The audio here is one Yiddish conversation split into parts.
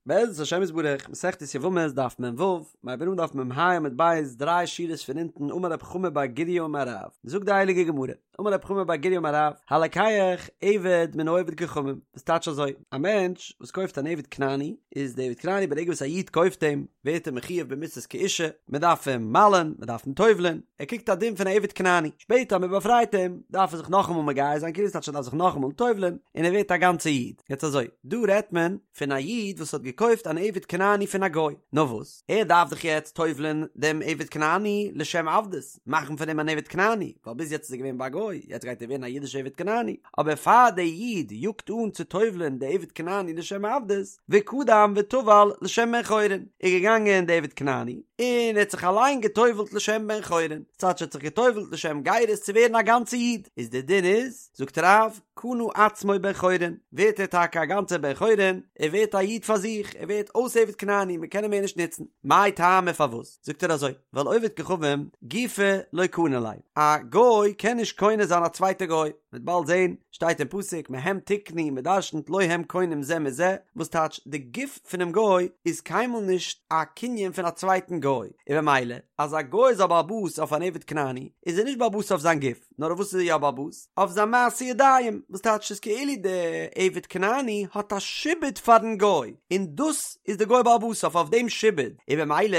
בעזרת השם יתברך, מסכת יבמות דף מ"ו, מ'הייבט אן דף מ"ה עמוד ב', דריי שורות פון אונטן, אמר רב חמא בר גוריא אמר רב, זאגט די הייליגע גמרא, אמר רב חמא בר גוריא אמר רב, הלוקח עבד מן העובד כוכבים, וואס טייטש אזוי, א מענטש וואס קויפט אן עבד כנעני, איז די עבד כנעני ברגע וואס א איד קויפט אים, ווערט ער מחויב במיתות כאישה, מען דארף אים מל'ען, מען דארף אים טובל'ען, ער קריגט א דין פון א עבד כנעני, שפעטער אז מען באפרייט אים, דארף ער זיך נאכאמאל מגייר זיין, כאילו ס'טייטש ער דארף זיך נאכאמאל טובל'ען, און ער ווערט א גאנצע איד. יעצט אזוי, דא רעדט מען פון א איד וואס האט געקויפט אן עבד כנעני פון א גוי, נאר וואס, ער דארף דאך יעצט טובל'ען דעם עבד כנעני לשם עבדות, מאכן פון אים אן עבד כנעני, ווייל ביז יעצט איז ער געווען ביי א גוי, יעצט גייט ער ווערן א אידישע עבד כנעני, אבער פאר דער איד יאגט אן צו טובל'ען די עבד כנעני לשם עבדות, וקדם וטבל לשם בן חורין, איז געגאנגען די עבד כנעני, און ער האט זיך אליין געטובל'ט לשם בן חורין, ס'טייטש ער האט זיך געטובל'ט לשם גירות צו ווערן א גאנצע איד, איז דער דין איז, זאגט רב, קנה עצמו בן חורין, ווערט ער טאקע א גאנצער בן חורין, ער ווערט א איד פאר זיך, ער ווערט אויס עבד כנעני, מען קען אים מער נישט נוצן. מאי טעמא פארוואס? זאגט ער אזוי, ווייל עובד כוכבים גופיה לא קני ליה, א גוי קען נישט קונה זיין א צווייטע גוי, מ'וועט באלד זען, שטייט אין פסוק מהם תקנו, מ'דרשנ'ט לא הם קונים זה מזה, וואס טייטש די גוף פונעם גוי איז קיינמאל נישט א קנין פון א צווייטן גוי, און במילא אז א גוי איז א בעל הבית אויף אן עבד כנעני, איז ער נישט בעל הבית אויף זיין גוף. נאר אויף וואס איז ער יא בעל הבית? אויף זיין מעשי ידיים, וואס טייטש ס'איז כאילו די עבד כנעני האט א שעבוד פארן גוי, און דאס איז די גוי בעל הבית אויף אויף דעם שעבוד, און במילא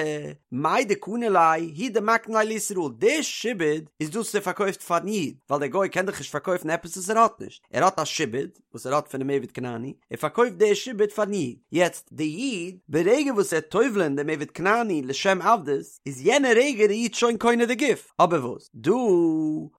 מאי דקני ליה הוא דמקני ליה לישראל, די שעבוד איז דאס וואס ער פארקויפט פארן איד, ווייל דער גוי קען דאך נישט פארקויפן עפעס וואס ער האט נישט, ער האט א שעבוד וואס ער האט פונעם עבד כנעני, ער פארקויפט די שעבוד פארן איד, יעצט די איד ברגע וואס ער טובל'ען דעם עבד כנעני לשם עבדות, איז יענע רגע די איד שוין קונה די גוף, אבער וואס דא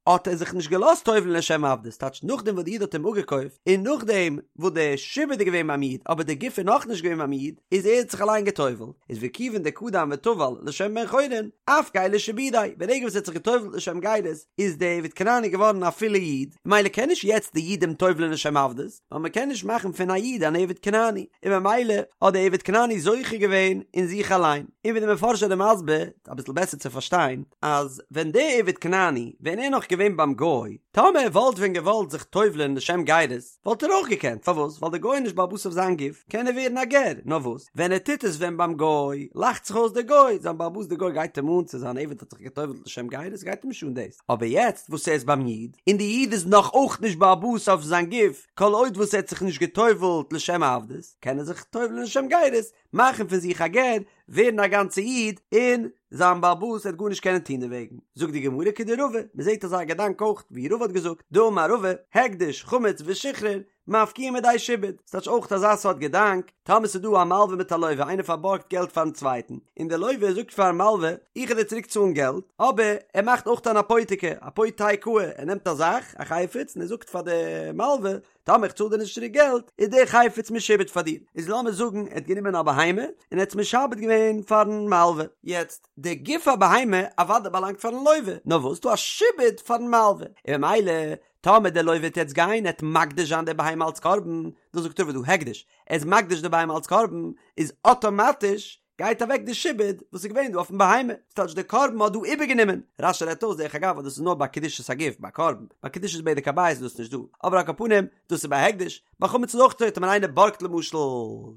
האט ער זיך נישט געלאזט טובל'ן לשם עבדות, טייטש נאכדעם וואס די איד האט אים אפגעקויפט, און נאכדעם וואס די שעבוד איז געווען ביים איד אבער די גוף איז נאכנישט געווען ביים איד, איז ער האט זיך אליין געטובל'ט, איז וכיוון דקדם וטבל לשם בן חורין, אפקעיה לשעבודיה, ברגע וואס ער האט זיך געטובל'ט לשם גירות, איז די עבד כנעני געווארן א פולע איד, ממילא קען נישט יעצט די איד אים טובל'ן לשם עבדות, ווייל מען קען נישט מאכן פון א איד אן עבד כנעני, און ממילא האט די עבד כנעני זוכה געווען אין זיך אליין, און ווי די מפרשים זענען מסביר, אביסל בעסער צו פארשטיין, אז ווען די עבד כנעני, ווען ער נאך געווען ביים גוי, טאמער ער וואלט ווען געוואלט זיך טובל'ען לשם גירות, וואלט ער אויך געקענט, פארוואס? ווייל די גוי איז נישט בעל הבית אויף זיין גוף, קען ער ווערן א גר, נאר וואס, ווען ער טוט עס ווען ביים גוי, לאכט זיך אויס דער גוי, זיין בעל הבית דער גוי גייט אים אן צו זיין עבד האט זיך געטובל'ט לשם גירות, גייט אים נישט אן דאס, אבער יעצט וואס ער איז ביים איד, און די איד איז נאך אויך נישט בעל הבית אויף זיין גוף, כל עוד וואס ער האט זיך נישט געטובל'ט לשם עבדות, קען ער זיך טובל'ן לשם גירות, מאכן פון זיך א גר, ווערן א גאנצע איד, און זיין בעל הבית וועט גארנישט קענען טון דערוועגן. זאגט די גמרא כדרבא, מען זעט אזא געדאנק אויך ווי רבא האט געזאגט, דאמר רבא, הקדש, חמץ ושחרור, מפקיעין מידי שעבוד, ס'טייטש אויך אזא סארט געדאנק, טאמער ס'איז דא א מלווה מיט א לווה, איינער פארבארגט געלט פארן צווייטן, און דער לווה זאגט פארן מלווה, איך וועל דיר צוריק צאלן געלט, אבער ער מאכט אויך אן אפותיקי, אפותיקאי, ער נעמט א זאך, א חפץ, און ער זאגט פאר די מלווה, טאמער איך צאל דיר נישט צוריק געלט, איז דער חפץ משועבד פאר דיר. איז לאמיר זאגן ער האט גענומען א בהמה, און ער האט עס משעבד געווען פארן מלווה. יעצט, די גוף הבהמה אוודאי באלאנגט פארן לווה, נאר וואס, ס'דא א שעבוד פארן מלווה, און ממילא, טאמער דער לווה וועט יעצט גיין, ער וועט מקדיש זיין די בהמה אלץ קרבן, דאס זאגט רבא דא הקדש, ער איז מקדיש די בהמה אלץ קרבן, איז אטאמאטיש גייט אוועק די שעבוד וואס איז געווען דא אויפן בהמה, ס'טייטש די קרבן האט דא איבערגענומען, רש"י רעדט אויס דרך אגב אז דאס איז נאר ביי קדושת הגוף ביי קרבן, ביי קדושת בדק הבית איז דאס נישט דא, אבער על כל פנים דאס איז ביי הקדש, ביי חמץ איז אויך אזוי טאמער איינער בארגט למשל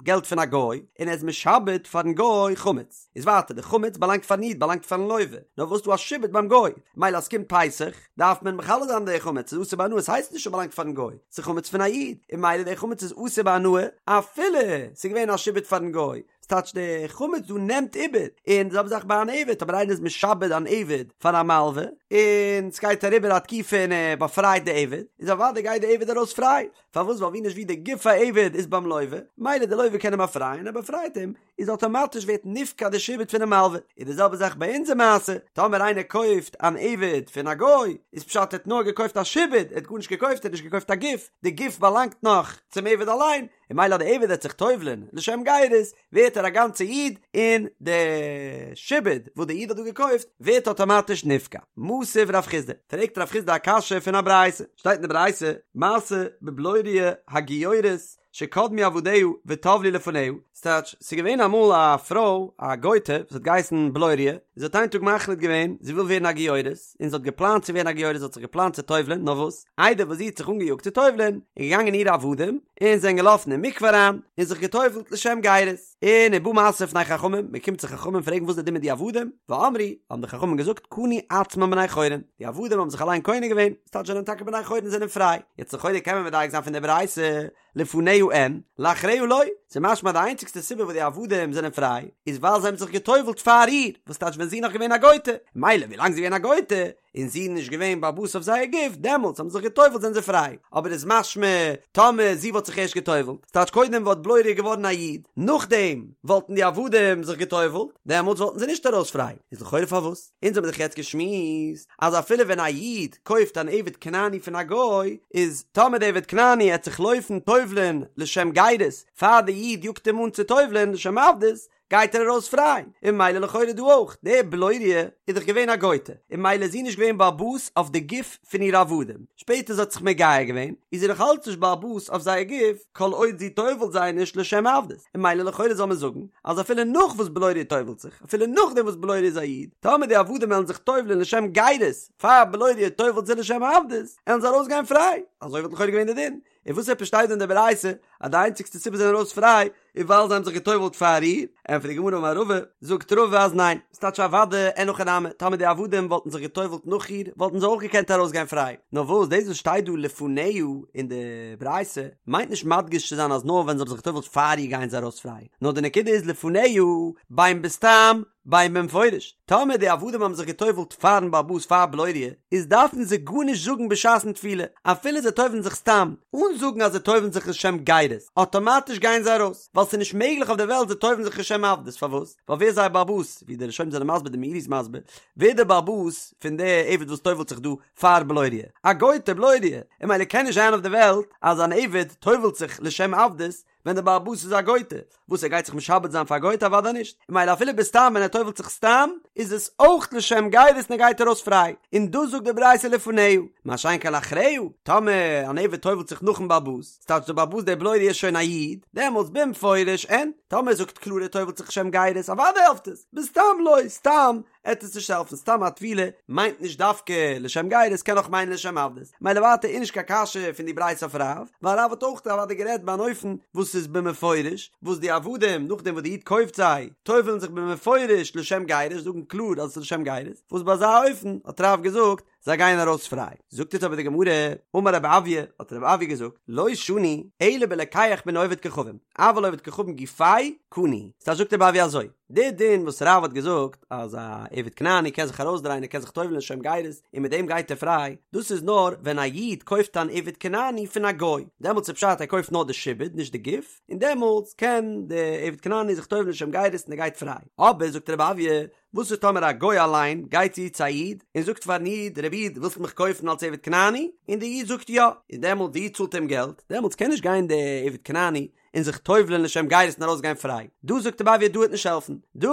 געלט פון א גוי און ער איז משעבד פארן גוי חמץ, איז ווייטער די חמץ באלאנגט פארן איד באלאנגט פארן לווה, נאר וואס דא א שעבוד ביים גוי, מילא אז ס'קומט פסח דארף מען מכלה זיין די חמץ, ס'איז אסור בהנאה, ס'הייסט נישט ס'באלאנגט פארן גוי, ס'איז חמץ פון א איד, און מילא די חמץ איז אסור בהנאה אפילו ס'איז געווען א שעבוד פארן גוי, ס'טייטש די חמץ דא נעמט איבער, און די זעלבע זאך ביי אן עבד, טאמער איינער איז משעבד אן עבד פאר א מלווה, און ס'גייט אריבער א תקופה און ער באפרייט די עבד, איז אוודאי גייט די עבד ארויס פריי, פארוואס ווייל ווי נישט ווי די גוף העבד איז ביים לווה, מילא די לווה קען אים באפרייען, ער באפרייט אים, איז אטאמאטיש ווערט נפקע די שעבוד פונעם מלווה, איז די זעלבע זאך ביי אונזער מעשה, טאמער איינער קויפט אן עבד פון א גוי, איז פשט ער האט נאר געקויפט א שעבוד, ער האט גארנישט געקויפט, ער האט נישט געקויפט א גוף, די גוף באלאנגט נאך צום עבד אליין, און מילא אז די עבד וועט זיך טובל'ען לשם גירות, ווערט ער א גאנצע איד, און די שעבוד וואס די איד האט דא געקויפט ווערט אטאמאטיש נפקע. מתיב רב חסדא, פרעגט רב חסדא א קשיא פון א ברייתא, שטייט אין די ברייתא, מעשה בבלוריא הגיורת שקדמו עבדיה וטבלו לפניה, ס'טייטש, ס'איז געווען אמאל א פרוי, א גוי'טע, וואס האט געהייסן בלוריא, זי האט איין טאג מחליט געווען זי וויל ווערן א גיורת, און זי האט געפלאנט צו ווערן א גיורת, זי האט זיך געפלאנט צו טובל'ען, נאר וואס, איידער וואס זי האט זיך אנגעיאגט צו טובל'ען, איז געגאנגען אירע עבדים, און זענען געלאפן אין מקווה אריין, און זיך געטובל'ט לשם גירות. און ובא משא לפני חכמים, מען קומט צו חכמים פרעגן וואס איז די דין מיט די עבדים, ואמרו, האבן די חכמים געזאגט, קנו עצמן בני חורין, די עבדים האבן זיך אליין קונה געווען, ס'טייטש זיי זענען טאקע בני חורין זענען פריי, יעצט לכאורה קען מען מדייק זיין פון די ברייתא, לפניה אין, לאחריה לא, ס'איז משמע די איינציגסטע סיבה וואס די עבדים זענען פריי, איז ווייל זיי האבן זיך גע'טובל'ט פאר איר, וואס טייטש ווען זי איז נאך געווען א גוי'טע, מילא ווילאנג זי איז געווען א גוי'טע, און זי איז נישט געווען בעל הבית אויף זייער גוף, דעמאלטס האבן זיי זיך גע'טובל'ט זענען זיי פריי, אבער איז משמע טאמער זי וואלט זיך ערשט גע'טובל'ט, ס'טייטש קודם וואלט בלוריא געווארן א איד, נאכדעם וואלטן די עבדים זיך גע'טובל'ט, דעמאלטס וואלטן זיי נישט ארויס פריי, איז לכאורה פארוואס? אונז האבן דאך יעצט געשמועסט אז אפילו ווען א איד קויפט אן עבד כנעני פון א גוי, איז טאמער די עבד כנעני עט זיך לויפן טובל'ען לשם גירות פאר די איד יאגט אים אן צו טובל'ען לשם עבדות, גייט ער ארויס פריי, און ממילא לכאורה דא אויך, די בלוריא איז דאך געווען א גויטע, און ממילא איז זי נישט געווען בעל הבית אויף די גוף פון אירע עבדים, שפעטער זי האט זיך מגייר געווען, איז זי נאך אלץ נישט בעל הבית אויף זייער גוף, כל עוד זי טובל'ט זיי נישט לשם עבדות, און ממילא לכאורה זאל מען זאגן, אז אפילו נאך וואס בלוריא טובל'ט זיך, אפילו נאכדעם וואס בלוריא איז א איד, טאמער די עבדים וועלן זיך טובל'ען לשם גירות, פאר בלוריא טובל'ט זיי לשם עבדות, עלן זיי ארויסגיין פריי, אזוי וואלט לכאורה געווען די דין, און וואס עפעס שטייט דא אין די ברייתא אז די איינציגסטע סיבה זיי זענען ארויס פריי איז ווייל זיי האבן זיך גע'טובל'ט פאר איר? ענטפערט די גמרא אמר רבא, זאגט רבא אז ניין, ס'טייטש אוודאי אין הכי נמי, טאמער די עבדים וואלטן זיך גע'טובל'ט נאך איר וואלטן זיי אויך געקענט ארויסגיין פריי, נאר וואס דאס וואס שטייט דא לפניה אין די ברייתא מיינט נישט מדגיש צו זיין אז נאר ווען זיי האבן זיך גע'טובל'ט פאר איר גייען זיי ארויס פריי, נאר די נקודה איז לפניה בין בסתם בין במפורש, טאמער די עבדים האבן זיך גע'טובל'ט פארן בעל הבית פאר בלוריא, איז דארפן זיי גארנישט זאגן בשעת'ן טבילה, אפילו זיי טובל'ן זיך סתם, אן זאגן אז זיי טובל'ן זיך לשם גירות, אטאמאטיש גייען זיי ארויס, ווייל ס'איז נישט מעגליך אויף דער וועלט זיי טובל'ן זיך לשם עבדות, פארוואס? ווייל ווער איז זייער בעל הבית? ווי די ראשונים זענען מסביר, די מאירי איז מסביר, ווער איז דער בעל הבית פון די עבד וואס טובל'ט זיך דא פאר בלוריא? א גוי'טע בלוריא, און ממילא קען נישט זיין אויף דער וועלט אז אן עבד טובל'ט זיך לשם עבדות, ווען דער בעל הבית איז א גויטע, וואס ער גייט זיך משעבד זיין פאר א גויטע אוודאי נישט, און ממילא אפילו בסתם ווען ער טובל'ט זיך סתם, איז עס אויך לשם גירות און ער גייט ארויס פריי, און דאס זאגט די ברייתא לפניה, מה שאין כן לאחריה, טאמער אן עבד טובל'ט זיך נאכן בעל הבית, ס'טייטש דער בעל הבית דער בלוריא איז שוין א איד, דעמאלטס במפורש אין, טאמער ער זאגט קלאר ער טובל'ט זיך לשם גירות אוודאי העלפט עס, בסתם לא, סתם עט עס נישט העלפן, סתם א טבילה מיינט נישט דווקא לשם גירות, קען אויך מיינען לשם עבדות, מילא ווייטער איז נישט קיין קשיא פון די ברייתא אויף רב, ווייל רב האט אויך אוודאי גערעדט ביי אן אופן וואס איז במפורש, וואס די עבדים נאכדעם וואס די איד קויפט זיי, טובל'ן זיך במפורש לשם גירות, זאגן קלאר אז עס איז לשם גירות, וואס ביי אזא אופן האט רב געזאגט זיי גייען ארויס פריי. זאגט יעצט אבער די גמרא, אמר רב אויא, האט רב אויא געזאגט, לא שנו, אלא בלוקח מן העובד כוכבים, אבל עובד כוכבים גופיה קני. ס'טייטש זאגט רב אויא אזוי, די דין וואס רב האט געזאגט אז א עבד כנעני קען זיך ארויסדרייען ער קען זיך טובל'ן לשם גירות און מיט דעם גייט ער פריי, דאס איז נאר ווען א איד קויפט אן עבד כנעני פון א גוי, דעמאלטס איז פשט ער קויפט נאר די שעבוד נישט די גוף, און דעמאלטס קען די עבד כנעני זיך טובל'ן לשם גירות און ער גייט פריי. אבער זאגט רב אויא, וואס איז טאמער א גוי אליין גייט צו צו א איד און זאגט פארן איד, רבי איד ווילסט מיך קויפן אלס עבד כנעני? און די איד זאגט יא, און דעמאלטס די איד צאלט אים געלט, דעמאלטס קען נישט גיין די עבד כנעני און זיך טובל'ען לשם גירות און ארויסגיין פריי. דא זאגט רב אויא דא וועט נישט העלפן. דא,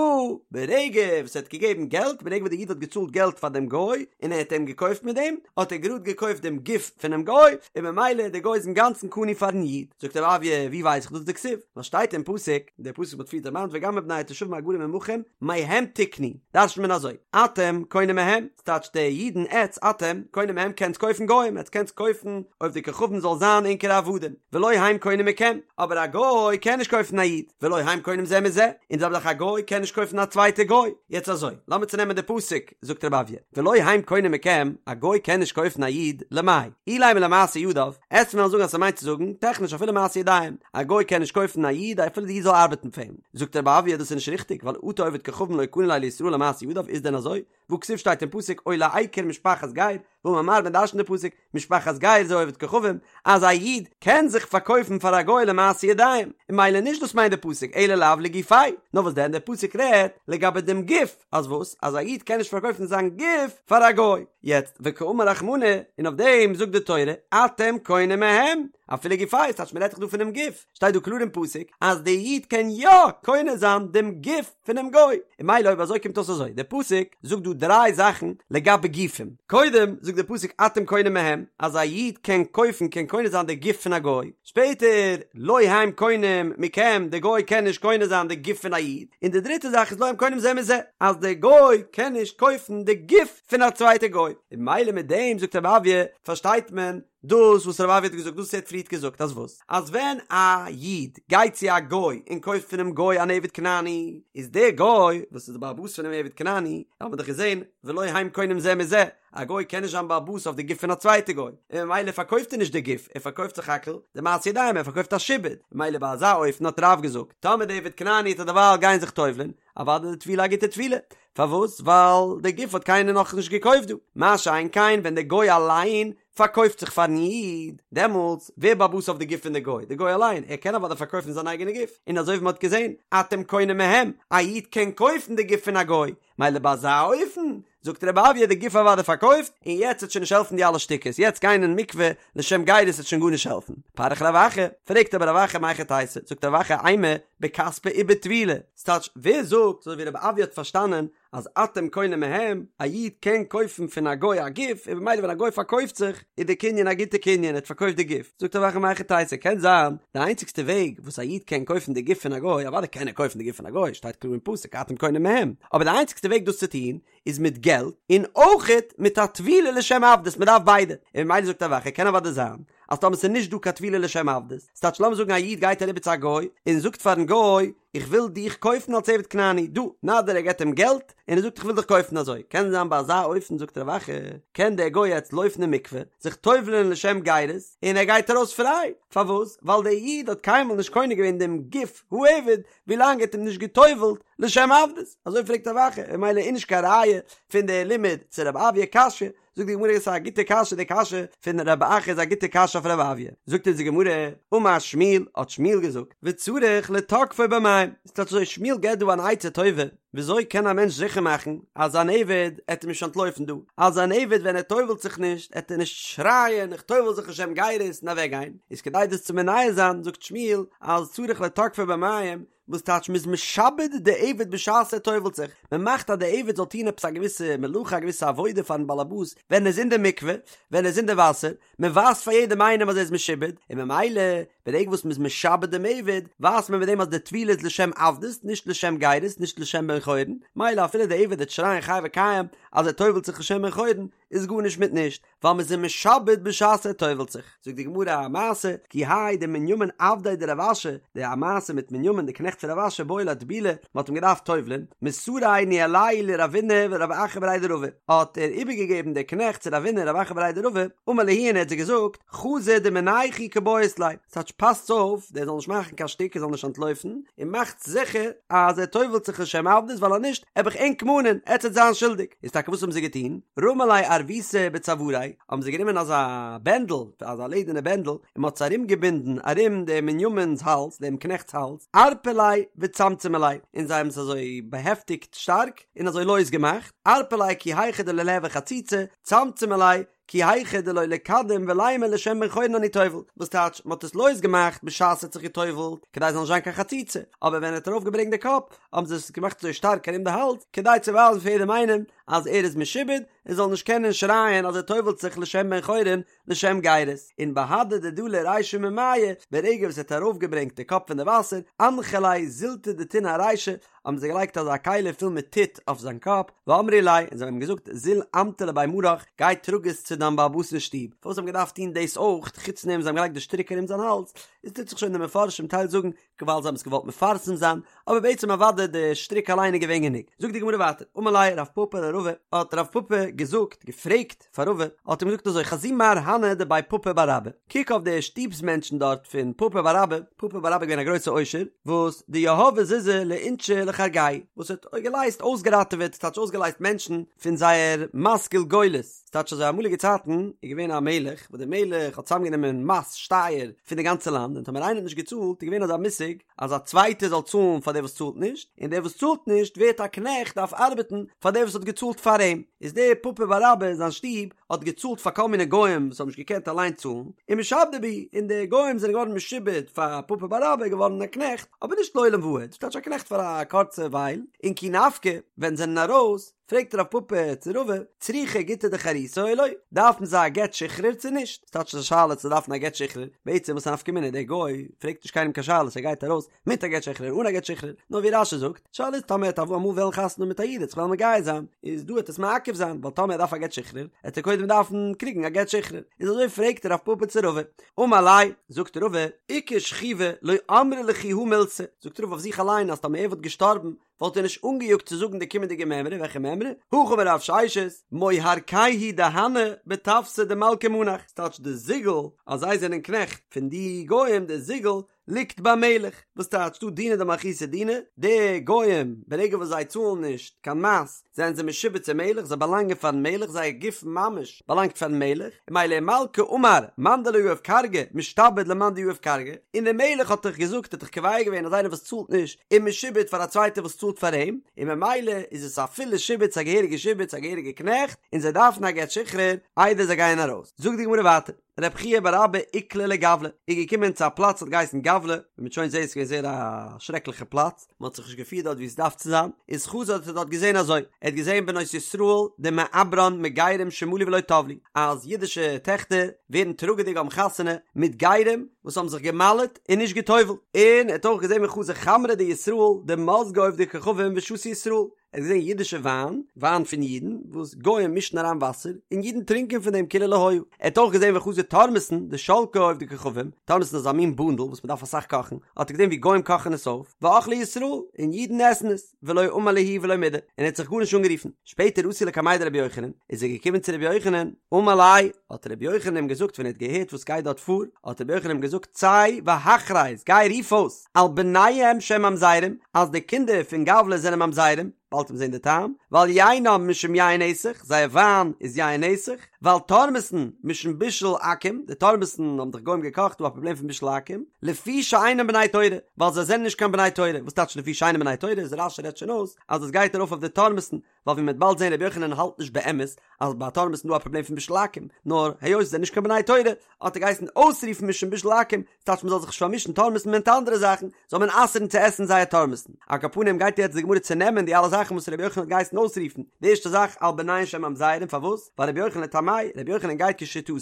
ברגע וואס ער האט געגעבן געלט, ברגע וואס די איד האט געצאלט געלט פאר דעם גוי, און ער האט אים געקויפט מיט דעם, האט ער גראד געקויפט דעם גוף פונעם גוי, און ממילא דער גוי איז אינגאנצן קנוי פארן איד. זאגט רב אויא, ווי ווייס איך דאס? דכתיב, ווייל שטייט אין פסוק, דער פסוק וואס מ'האט פריער דערמאנט וגם מבני התושבים הגרים עמכם, מהם תקנו, דרש'נט מען אזוי, אתם קונים מהם, ס'טייטש די אידן עטץ, אתם, קונים מהם קענטס קויפן גוים, עטץ קענטס קויפן עובדי כוכבים זאל זיין ענקערע עבדים, ולא הם קונים מכם, אבער א גוי קען נישט קויפן א איד, ולא הם קונים זה מזה, און די זעלבע זאך א גוי קען נישט קויפן א צווייטע גוי, יעצט אזוי, לאמיר צונעמען די פסוק, זאגט רב אויא, ולא הם קונים מכם, א גוי קען נישט קויפן א איד, למאי, אילימא למעשה ידיו, עטץ וועלן זאגן אז ס'מיינט צו זאגן, טעכניש אפילו מעשה ידיים, א גוי קען נישט קויפן א איד אפילו די איד זאל ארבעטן פאר אים, זאגט רב אויא דאס איז נישט ריכטיג, ווייל אטו עובד כוכבים לא קני ליה לישראל למעשה ידיו, איז דען אזוי? והכתיב שטייט אין פסוק או לעקר משפחת גר, ואמר מר מען דרש'נט די פסוק, משפחת גר זה עובד כוכבים, אז א איד קען זיך פארקויפן פאר א גוי למעשה ידיים, און ממילא נישט דאס מיינט די פסוק אלא לאו לגופיה, נאר וואס דען דער פסוק רעדט לגבי דעם גוף, אז וואס? אז א איד קען נישט פארקויפן זיין גוף פאר א גוי, יעצט וקאמר רחמנא, און אויף דעם זאגט די תורה, אתם קונים מהם, אפילו גופיה, ס'טייטש מען רעדט דאך דא פונעם גוף, שטייט דא קלאר אין פסוק אז די איד קען יא קונה זיין דעם גוף פונעם גוי, און ממילא אויב אזוי קומט אויס אזוי, דער פסוק זאגט דא דריי זאכן לגבי גופים, קודם זאגט די פסוק אתם קונים מהם אז א איד קען קויפן קען קונה זיין די גוף פון א גוי, שפעטער לא הם קונים מכם די גוי קען נישט קונה זיין די גוף פון א איד, און די דריטע זאך איז לא הם קונים זה מזה אז די גוי קען נישט קויפן די גוף פון א צווייטע גוי, און ממילא מיט דעם זאגט רב אויא פארשטייט מען דאס וואס רב אויא האט געזאגט דאס וואס ער האט פריערט געזאגט אז וואס? אז ווען א איד גייט צו א גוי און קויפט פונעם גוי אן עבד כנעני, איז דער גוי וואס איז די בעל הבית פונעם עבד כנעני, האט מען דאך געזען ולא הם קונים זה מזה, א גוי קען נישט זיין בעל הבית אויף די גוף פון א צווייטע גוי, און ממילא פארקויפט ער נישט די גוף, ער פארקויפט סך הכל די מעשה ידיים, ער פארקויפט א שעבוד, ממילא ביי אזא אופן האט רב געזאגט, טאמער די עבד כנעני וועט דערווייל גיין זיך טובל'ען, אוודאי די טבילה א גוטע טבילה, פארוואס? ווייל די גוף האט קיינער נאכנישט געקויפט דא, מה שאין כן ווען די גוי אליין פארקויפט זיך פארן איד, דעמאלטס ווער בעל הבית אויף די גוף פון די גוי? די גוי אליין, ער קען אוודאי פארקויפן זיין אייגענע גוף, און אזוי ווי מען האט געזען, אתם קונים מהם, א איד קען קויפן די גוף פון א גוי, מילא ביי אזא אופן, זאגט רב אויא די גוף אוודאי פארקויפט, און יעצט וועט שוין נישט העלפן די אלע שטיקעס, יעצט גיין אין מקווה לשם גירות וועט שוין גארנישט העלפן. פריך רב אחא, פרעגט אבער רב אחא מהיכי תיתי, זאגט רב אחא אימא בכספא ובטבילה, ס'טייטש ווער זאגט אזוי ווי רב אויא האט פארשטאנען אז אתם קונים מהם, א איד קען קויפן פון א גוי א גוף, און במילא ווען א גוי פארקויפט זיך, איז די קנין א גוטע קנין, ער האט פארקויפט די גוף. זאגט רב אחא מהיכי תיתי, קען זיין, די איינציגסטע וועג וואס א איד קען קויפן די גוף פון א גוי, אוודאי קען ער קויפן די גוף פון א גוי, שטייט קלאר אין פסוק אתם קונים מהם, אבער די איינציגסטע וועג דאס צו טון, איז מיט געלט, און אויכעט מיט א טבילה לשם עבדות, מען דארף ביידע. און במילא זאגט רב אחא, קען אוודאי זיין, אז טאמער ס'איז נישט דא קיין טבילה לשם עבדות, ס'טייטש לאמיר זאגן א איד גייט אריבער צו א גוי, און זאגט פארן גוי, איך וויל דיך קויפן אלס עבד כנעני, דא, נא דיר ער געבט אים געלט, און ער זאגט איך וויל דיך קויפן אזוי, קען זיין ביי אזא אופן זאגט רב אחא, קען דער גוי יעצט לויפן אין מקווה, זיך טובל'ען לשם גירות, און ער גייט ארויס פריי, פארוואס? ווייל דער איד האט קיינמאל נישט קונה געווען דעם גוף העבד, ווילאנג ער האט אים נישט געטובל'ט לשם עבדות, אזוי פרעגט רב אחא, און ממילא איז נישט קיין ראיה פון דער לימוד צו רב אויא קשיא, זאגט די גמרא עס איז א גוטע קשיא די קשיא פון רב אחא איז א גוטע קשיא אויף רב אויא, זאגט אונז די גמרא, אמר שמואל, האט שמואל געזאגט, וצריך לתקפו במים, ס'טייטש אזוי שמואל געבט דא אן עצה טובה, וויאזוי קען א מענטש זיכער מאכן אז זיין עבד עט אים נישט אנטלויפן דא, אז זיין עבד ווען ער טובל'ט זיך נישט עט ער נישט שרייען איך טובל זיך לשם גירות און אוועק גיין, איז כדי דאס צו מונע זיין זאגט שמואל אז צריך לתקפו במים, וואס טייטש מ'איז משעבד די עבד בשעת ער טובל'ט זיך, מ'מאכט אז די עבד זאל טון עפעס א געוויסע מלאכה א געוויסע עבודה פארן באלעבאס ווען ער איז אין די מקווה, ווען ער איז אין די וואסער, מ'ווייזט פאר יעדעם איינעם אז ער איז משועבד, און ממילא ברגע וואס מ'איז משעבד דעם עבד, ווייזט מען מיט דעם אז די טבילה איז לשם עבדות, נישט לשם גירות, נישט לשם בן חורין, מילא אפילו די עבד וועט שרייען חי וקיים אז ער טובל'ט זיך לשם בן חורין, איז גארנישט מיט נישט, ווייל מ'איז אים משעבד בשעת ער טובל'ט זיך. זאגט די גמרא א מעשה, כי האי דמנימין עבדיה דרב אשי, די א מעשה מיט מנימין די קנעכט פון רב אשי בעי לאטבולי, מ'האט אים געדארפט טובל'ען, מסריה ניהליה לרבינא ורב אחא בריה דרבא, האט ער איבערגעגעבן די קנעכט צו רבינא און רב אחא בריה דרבא, אמר להו און ער האט זיי געזאגט, חזו דמינייכו קבעית ליה, ס'טייטש פאסטס אויף, דער זאל נישט מאכן קיין שטיק, ער זאל נישט אנטלויפן, און מאכטס זיכער אז ער טובל'ט זיך לשם עבדות, ווייל אז נישט, עב איך ענק מאנען, עטס עט זיין שולדיג. איז טאקע וואס האבן זיי געטון? רמו ליה ערביתא בצואריה, האבן זיי גענומען אזא בענדל, אזא לעדערנע בענדל, און מ'האט עס ארומגעבינדן ארום דעם מנימין'ס האלז, דעם קנעכט'ס האלז, ערפו ליה וצמצמו ליה, און זיי האבן עס אזוי באהעפטיגט שטארק, און אזוי לויז געמאכט, ערפו ליה כי היכי דלא ליהוי חציצה, צמצמו ליה, כי היכי דלא ליקדם ולימא לשם בן חורין אני טובל, וואס טייטש, מ'האט עס לויז געמאכט בשעת ער האט זיך געטובל'ט, כדי עס זאל נישט זיין קיין חציצה, אבער ווען ער האט ארויף געברענגט די קאפ, האבן זיי עס געמאכט אזוי שטארק ארום די האלז, כדי צו ווייזן פאר יעדעם איינעם אז ער איז משועבד, און זאל נישט קענען שרייען אז ער טובל'ט זיך לשם בן חורין, לשם גירות, און בהדי דדלי רישיה ממיא, ברגע וואס ער האט ארויף געברענגט די קאפ פון די וואסער, אנחו ליה זילתא דטינא ארישיה, האבן זיי געלייגט אזא כלי פול מיט טיט אויף זיין קאפ, ואמרי ליה, און זיי האבן אים געזאגט, זיל אמטי לבי מרך, גיי טראג עס צו דיין בעל הבית אין שטוב. פארוואס האבן געדארפט טון דאס אויך, חוץ דעם זיי האבן געלייגט די שטריק ארום זיין האלז, איז טוט זיך שוין די מפרשים טייל זאגן, ווייל זיי האבן עס געוואלט מפרסם זיין, אבער בעצם אוודאי די שטריק אליין איז געווען גענוג. זאגט די גמרא ווייטער, אמר ליה רב פפא לרבא, האט רב פפא געזאגט, געפרעגט, פאר רבא, האט אים געזאגט אזוי, חזי מר הני דבי פפא בר אבא, קוק אויף די שטוב'ס מענטשן דארט פון פפא בר אבא, פפא בר אבא איז געווען א גרויסע עושר, וואס דיהבי זוזי לאינשי לכרגייהו, וואס האט געלייזט אויסגעראטעוועט, ס'טייטש אויסגעלייזט מענטשן פון זייער מס גולגולת, ס'טייטש אזוי אמאליגע צייטן איז געווען א מלך, וואס דער מלך האט צוזאמגענומען מס, שטייער, פון די גאנצע לאנד, און טאמער איינער האט נישט געצאלט איז געווען אזא מושג אז א צווייטער זאל צאלן פאר דער וואס צאלט נישט, און דער וואס צאלט נישט ווערט א קנעכט דארף ארבעטן פאר דער וואס האט געצאלט פאר אים. איז דער פפא בר אבא אין זיין שטוב האט געצאלט פאר כל מיני גוים וואס האבן נישט געקענט אליין צאלן, ומשעבדי בהו, און די גוים זענען געווארן משועבד פאר פפא בר אבא, געווארן א קנעכט, אבער נישט לעולם ועד, ס'טייטש א קנעכט פאר א קורצע ווייל, און כי נפקי, ווען זענען ארויס, פרעגט רב פפא צו רבא, צריכי גיטא דחירותא או לא, דארפן זיי א גט שחרור צו נישט? ס'טייטש א שאלה צו דארפן א גט שחרור, בעצם וואס א נפקא מינה, דער גוי פרעגט נישט קיינעם קיין שאלות ער גייט ארויס מיט א גט שחרור אן א גט שחרור, נאר ווי רש"י זאגט, שאלה איז טאמער ער וועט אמאל וועלן חתונה האבן מיט א איד ער וועט זיך וועלן מגייר זיין, איז דא וועט עס מעכב זיין, ווייל טאמער ער דארף א גט שחרור, עט ער קודם דארפן קריגן א גט שחרור, איז אזוי פרעגט רב פפא צו רבא, אמר ליה, זאגט רבא, איכא שכיבא לא אמרי לכו הא מילתא, זאגט רבא אויף זיך אליין אז טאמער ער וואלט געשטארבן וואלט ער נישט אנגעיאגט צו זאגן די קומענדיגע מימרא, וועלכע מימרא? הכי אמר רב ששת, מוהרקייהו דהני בטפסא דמלכא מנח, ס'טייטש די זיגל אז זיי זענען קנעכט פון די גוים, די זיגל ליגט ביים מלך, וואס טייטש דא דינא דמלכותא דינא, די גוים ברגע וואס זיי צאלן נישט קיין מס זענען זיי משועבד צום מלך, זיי באלאנגען פארן מלך, זייער גוף ממש באלאנגט פארן מלך, און ממילא ומלכא אמר מאן דלא יהיב כרגא משתעבד למאן דיהיב כרגא, און דער מלך האט דאך געזאגט האט דאך קובע געווען אז איינער וואס צאלט נישט איז משועבד פאר א צווייטער וואס צאלט פאר אים, און ממילא איז עס א פולע שעבוד, ס'איז א געהעריגע שעבוד, ס'איז א געהעריגע קנעכט, און זיי דארפן א גט שחרור איידער זיי גייען ארויס. זאגט די גמרא ווייטער. רב חייא בר אבא איקלע לגבלא, איז געקומען צו א פלאץ האט געהייסן גבלא, ווי מ'וועט שוין זעהן איז געווען זייער א שרעקליכע פלאץ, מ'האט זיך נישט געפירט דארט ווי עס דארף צו זיין, איז חזא האט ער דארט געזעהן אזוי, ער האט געזעהן בנות ישראל דמעברן מגרים שמלו ולא טבלו, אז אידישע טעכטער ווערן טראגעדיג האבן חתונה מיט גרים וואס האבן זיך גע'מל'ט און נישט גע'טובל'ט, און ער האט אויך געזעהן וחזא חמרא דישראל דמזגי עובדי כוכבים ושתו ישראל, ער האט געזען אידישע וויין, וויין פון אידן, וואס גוים מישן אריין וואסער, און אידן טרינקען פון דעם כאילו לא היה. ער האט אויך געזען וחזא תורמוסין דשלקי עובדי כוכבים, תורמוסין איז א מין בונדל וואס מען דארף אסאך קאכן, האט ער געזען ווי גוים קאכן עס אויף, ואכלי ישראל, און אידן עסן עס, ולא אמר להו ולא מידי, און ער האט זיך גארנישט אנגערופן. שפעטער אתא לקמיה דרבי יוחנן, איז ער געקומען צו רבי יוחנן, אמר ליה, האט רבי יוחנן אים געזאגט ווען ער האט געהערט וואס גייט דארט פאר, האט רבי יוחנן אים געזאגט צא והכרז, גיי רוף אויס, על בניהם שהם ממזרים, אז די קינדער פון גבלא זענען ממזרים, באלד וועט מען זען די טעם, ועל יינם משום יין נסך, זייער וויין איז יין נסך, ועל תורמוסן משום בישול עכו"ם, די תורמוסן האבן דאך גוים געקאכט, דא א פראבלעם פון בישול עכו"ם, לפי שאינם בני תורה, ווייל זיי זענען נישט קיין בני תורה, וואס טייטש לפי שאינם בני תורה, איז רש"י רעדט שוין אויס אז עס גייט ארויף אויף די תורמוסן, ווייל ווי מ'וועט באלד זען רבי יוחנן האלט נישט באמת אז ביי תורמוסן איז דא א פראבלעם פון בישול עכו"ם, נאר היות זיי זענען נישט קיין בני תורה האט ער געהייסן אויסרופן משום בישול עכו"ם, ס'טייטש מ'זאל זיך נישט פארמישן תורמוסן מיט אנדערע זאכן, זאל מען אסר'ן צו עסן זייער תורמוסן. על כל פנים גייט יעצט די גמרא צונעמען די אלע זאכן וואס רבי יוחנן האט געהייסן אויסרופן, די ערשטע זאך על בניהן שהן ממזרים פארוואס? ווייל רבי יוחנן לטעמיה, רבי יוחנן גייט כשיטתו,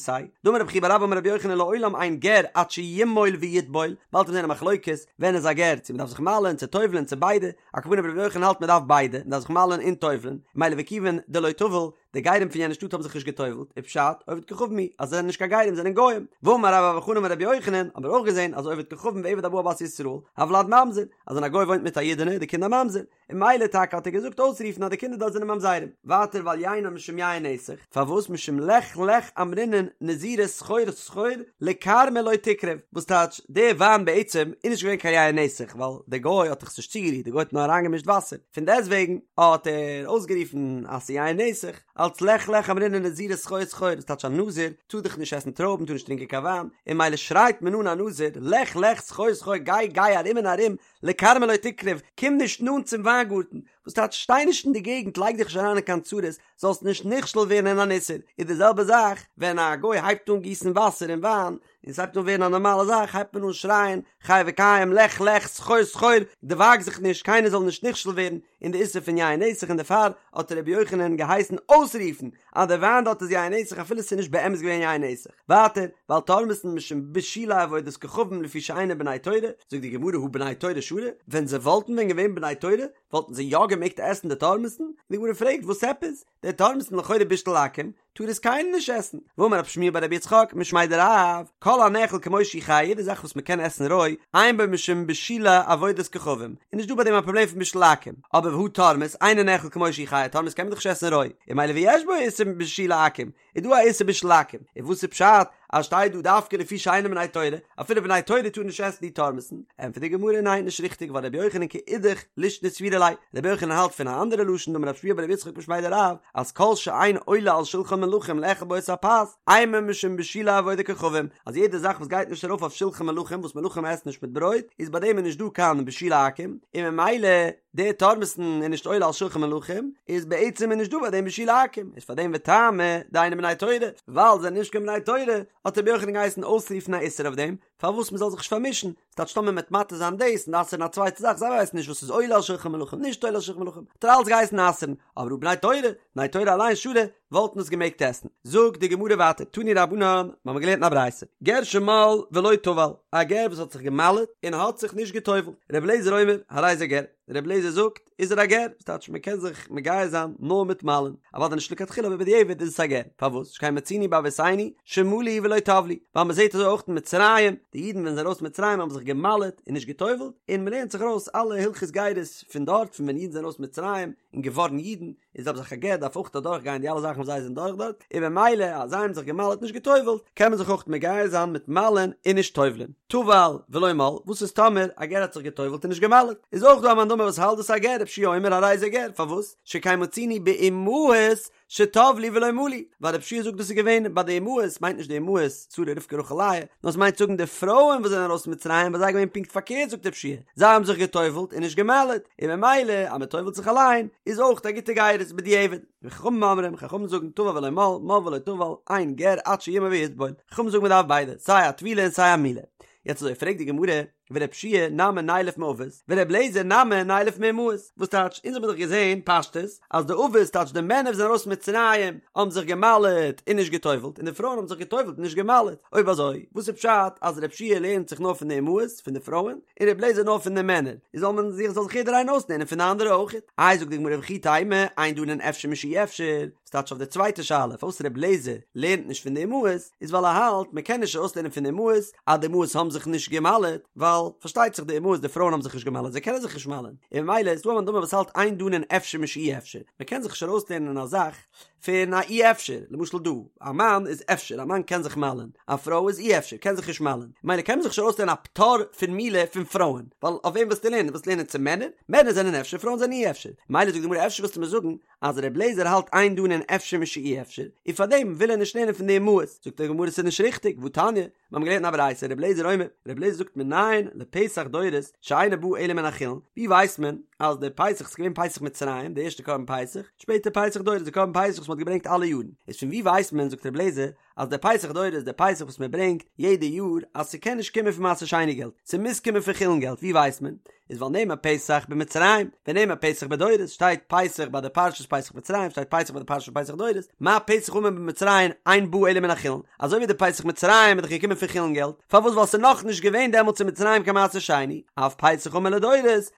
דאמר רב חייא בר אבא אמר רבי יוחנן לעולם אין גר עד שימול ויטבול, באלד וועט מען זען א מחלוקת ווען איז א גר, צו מ'דארף זיך מל'ען צו טובל'ען צו ביידע, על כל פנים רבי יוחנן האלט מען דארף ביידע, מען דארף זיך מל'ען און טובל'ען, מילא וכיוון דלא טבל, די גרים פון יענע שטאט האבן זיך נישט געטובל'ט, איז פשט, עובד כוכבים הוא, אז זיי זענען נישט קיין גרים זענען גוים. ואמר רבה בר בר חנה אמר רבי יוחנן, האבן מיר אויך געזען אז עובד כוכבים ועבד הבא על בת ישראל, הולד ממזר, אז ווען א גוי וואוינט מיט א אידענע איז די קינד א ממזר, און מילא טאקע האט ער געזאגט אויסרופן אז די קינדער דארט זענען ממזרים. ווייטער ועל יינם משום יין נסך, פארוואס משום לך לך אמרינן נזירא סחור סחור לכרמא לא תקרב, וואס טייטש, די וויין בעצם איז נישט געווען קיין יין נסך ווייל די גוי האט דאך עס נישט צוגערירט, די גוי האט נאר אריינגעמישט וואסער, פון דעסטוועגן האט ער אויסגערופן אז ס'איז יין נסך, אלץ לך לך אמרינן נזירא סחור סחור, וואס טייטש א נזיר טאר דאך נישט עסן טרויבן טאר נישט טרינקען קיין וויין, און מילא שרייט מען אן א נזיר לך לך סחור סחור גיי גיי ארום און ארום לכרמא לא תקרב, קום נישט נאנט צום וויינגארטן, וואס טייטש שטיי נישט אין די געגנט לייג דיך נישט אריין אין קיין צרות, זאלסט נישט נכשל ווערן אין אן איסור, איז די זעלבע זאך ווען א גוי הייבט אן גיסן וואסער אין וויין, און ס'הייבט אן ווערן א נארמאלע זאך הייבט מען אן שרייען חי וקיים לך לך סחור סחור דערוואג זיך נישט קיינער זאל נישט נכשל ווערן אין די איסור פון יין נסך און דערפאר האט רבי יוחנן געהייסן אויסרופן אז די וויין דארט איז יין נסך אפילו ס'איז נישט באמת געווען יין נסך. ווייטער, ועל תורמוסן משום בישולי עבודת כוכבים לפי שאינן בני תורה, זאגט די גמרא הא בני תורה שרי, ווען זיי וואלטן ווען געווען בני תורה וואלטן זיי יא געמעגט עסן די תורמוסן? די גמרא פרעגט וואס עפעס? די תורמוסן לכאורה בישול עכו"ם, טאר עס קיינער נישט עסן. ואמר רב שמואל בר רבי יצחק משמיה דרב, כל הנאכל כמו שהוא חי, יעדע זאך וואס מען קען עסן רוי, אין בו משום בישולי עבודת כוכבים, איז נישט דא ביי דעם א פראבלעם פון בישול עכו"ם. אבער והא תורמוס, אינו נאכל כמו שהוא חי, תורמוס קען מען דאך נישט עסן רוי, און מילא ויש בו איסור בישולי עכו"ם, איז דא א איסור בישול עכו"ם, און וואס איז פשט אז שטייט דא דווקא לפי שאינן בני תורה, אפילו בני תורה טארן נישט עסן די תורמוסן, ענטפערט די גמרא ניין נישט ריכטיג ווייל רבי יוחנן כאידך לישנא סבירא ליה, רבי יוחנן האלט פון א אנדערע לשון דאמר רב שמואל בר רבי יצחק משמיה דרב אז כל שאין עולה על שלחן מלכים לאכול בו את הפת אינו משום בישולי עבודת כוכבים, אז יעדע זאך וואס גייט נישט ארויף אויף שלחן מלכים וואס מלכים עסן נישט מיט ברויט איז ביי דעם איז נישט דא קיין בישולי עכו"ם, און ממילא. די תורמוס'ן איז נישט עולה על שלחן מלכים, איז בעצם איז נישט דא ביי דעם בישולי עכו"ם, איז פאר דעם וטעמא דאינן בני תורה, ווייל זיי זענען נישט קיין בני תורה, האט רבי יוחנן געהייסן אויסרופן א איסור אויף דעם, פארוואס מ'זאל זיך נישט פארמישן, ס'טייטש טאמער מ'וועט מתיר זיין דאס און אסר'ן א צווייטע זאך, זיי ווייסן נישט וואס איז עולה על שלחן מלכים נישט עולה על שלחן מלכים, האט ער אלץ געהייסן אסר'ן, אבער הא בני תורה, בני תורה אליין שרי, וואלטן עס געמעגט עסן. זאגט די גמרא ווייטער, תנו רבנן, מיר האבן געלערנט אין א ברייתא, גר שמל ולא טבל, א גר וואס האט זיך גע'מל'ט און האט זיך נישט גע'טובל'ט, ר' אליעזר אומר, הרי זה גר, ר' אליעזר זאגט, איז ער א גר, וואס טייטש מען קען זיך מגייר זיין נאר מיט מל'ן, אוודאי נישט לכתחילה אבער בדיעבד איז עס א גר, פארוואס? שכן מצינו באבותינו שמלו ולא טבלו, ווייל מען זעט אזוי אויך אין מצרים, די אידן ווען זיי זענען ארויס מצרים האבן זיך גע'מל'ט און נישט גע'טובל'ט, און מען לערנט זיך ארויס אלע הלכות גירות פון דארט פון ווען אידן זענען ארויס מצרים און געווארן אידן, איז אויב זיך א גר דארף אויך אדורך גיין די אלע זאכן וואס זיי זענען דורך דארט, און במילא אז זיי האבן זיך געמל'ט נישט גע'טובל'ט, קען מען זיך אויך מגייר זיין מיט מל'ן און נישט טובל'ן. טבל ולא מל, וואס איז טאמער א גר האט זיך גע'טובל'ט און נישט גע'מל'ט? איז אויך דא א מאן דאמר וואס האלט דאס א גר, רבי יהושע אומר הרי זה גר, פארוואס? שכן מצינו באמהות שטבלו ולא מלו, ווייל רבי יהושע זאגט דאס איז געווען ביי די אמהות, מיינט נישט די אמהות שרה רבקה רחל לאה, נאר עס מיינט זאגן די פרויען וואס זענען ארויס פון מצרים ביי זיי איז געווען פונקט פארקערט זאגט רבי יהושע זיי האבן זיך גע'טובל'ט און נישט גע'מל'ט, און ממילא אז מען טובל'ט זיך אליין איז אויך א גוטע גירות בדיעבד. וחכמים אומרים, חכמים זאגן טבל ולא מל, מל ולא טבל, אין גר עד שימול ויטבול, חכמים זאגן מען דארף ביידע, סיי א טבילה און סיי א מילה. יעצט אזוי פרעגט די גמרא, ור' יהושע נמי נילף מאבות, ור' אליעזר נמי נילף מאמהות, וואס טייטש, אונז האבן דאך געזען פשטות אז די אבות טייטש די מענער וואס זענען ארויס מצרים האבן זיך געמל'עט און נישט גע'טובל'ט און די פרויען האבן זיך גע'טובל'ט און נישט געמל'עט, אויב אזוי וואס איז פשט אז ר' יהושע לערנט זיך נאר פון די אמהות, פון די פרויען, און ר' אליעזר נאר פון די מענער, איז זאל מען זיך זאל זיך יעדער איינער אויסלערנען פון די אנדערע אויך? איי זאגט די גמרא וכי תימא, אין דנין אפשר משאי אפשר, ס'טייטש אויף די צווייטע שאלה פארוואס ר' אליעזר לערנט נישט פון די אמהות, איז ווייל ער האלט מען קען נישט ארויסלערנען פון די אמהות אז די אמהות האבן זיך נישט גע'מל'עט, ווייל פארשטייט זיך די אמהות די פרויען האבן זיך נישט גע'מל'עט זיי קענען זיך נישט מל'ען, און ממילא איז דא א מאן דאמר וואס האלט אין דנין אפשר משאי אפשר, מען קען זיך נישט ארויסלערנען א זאך פון א אי אפשר, למשל דא, א מאן איז אפשר, א מאן קען זיך מל'ען, א פרוי איז אי אפשר, קען זיך נישט מל'ען, ממילא קען מען זיך נישט ארויסלערנען א פטור פון מילה פון פרויען, ווייל אויף וועם ווילסטו לערנען? ווילסט לערנען צו מענער? מענער זענען אפשר, פרויען זענען אי אפשר, ממילא זאגט די גמרא אפשר ווילסטו מיר זאגן אז ר' אליעזר האלט אין דנין אפשר משאי אפשר, און פארדעם וויל ער נישט לערנען פון די אמהות, זאגט די גמרא ס'איז נישט ריכטיג, והתניא, מיר האבן געלערנט אין א ברייתא ר' אליעזר אומר, ר' אליעזר זאגט מנין לפסח דורות שאינו בא אלא מן החולין, ווי ווייסט מען אז די פסח איז געווען פסח מצרים, די ערשטע קרבן פסח, שפעטער פסח דורות די קרבן פסח וואס מ'האט געברענגט אלע יארן, איז פון ווי ווייסט מען זאגט ר' אליעזר אז די פסח דורות איז די פסח וואס מען ברענגט יעדע יאר אז ס'קען נישט קומען פון מעשר שני געלט, ס'מוז קומען פון חולין געלט, ווי ווייסט מען? איז ווייל נאמר פסח במצרים ונאמר פסח בדורות שטייט פסח ביי די פרשת פסח מצרים שטייט פסח ביי די פרשת פסח דורות מה פסח האמור במצרים אין בא אלא מן החולין אזוי ווי די פסח מצרים איז דאך געקומען פון חולין געלט פארוואס ווייל ס'איז נאך נישט געווען דעמאלטס אין מצרים קיין מעשר שני אף פסח האמור לדורות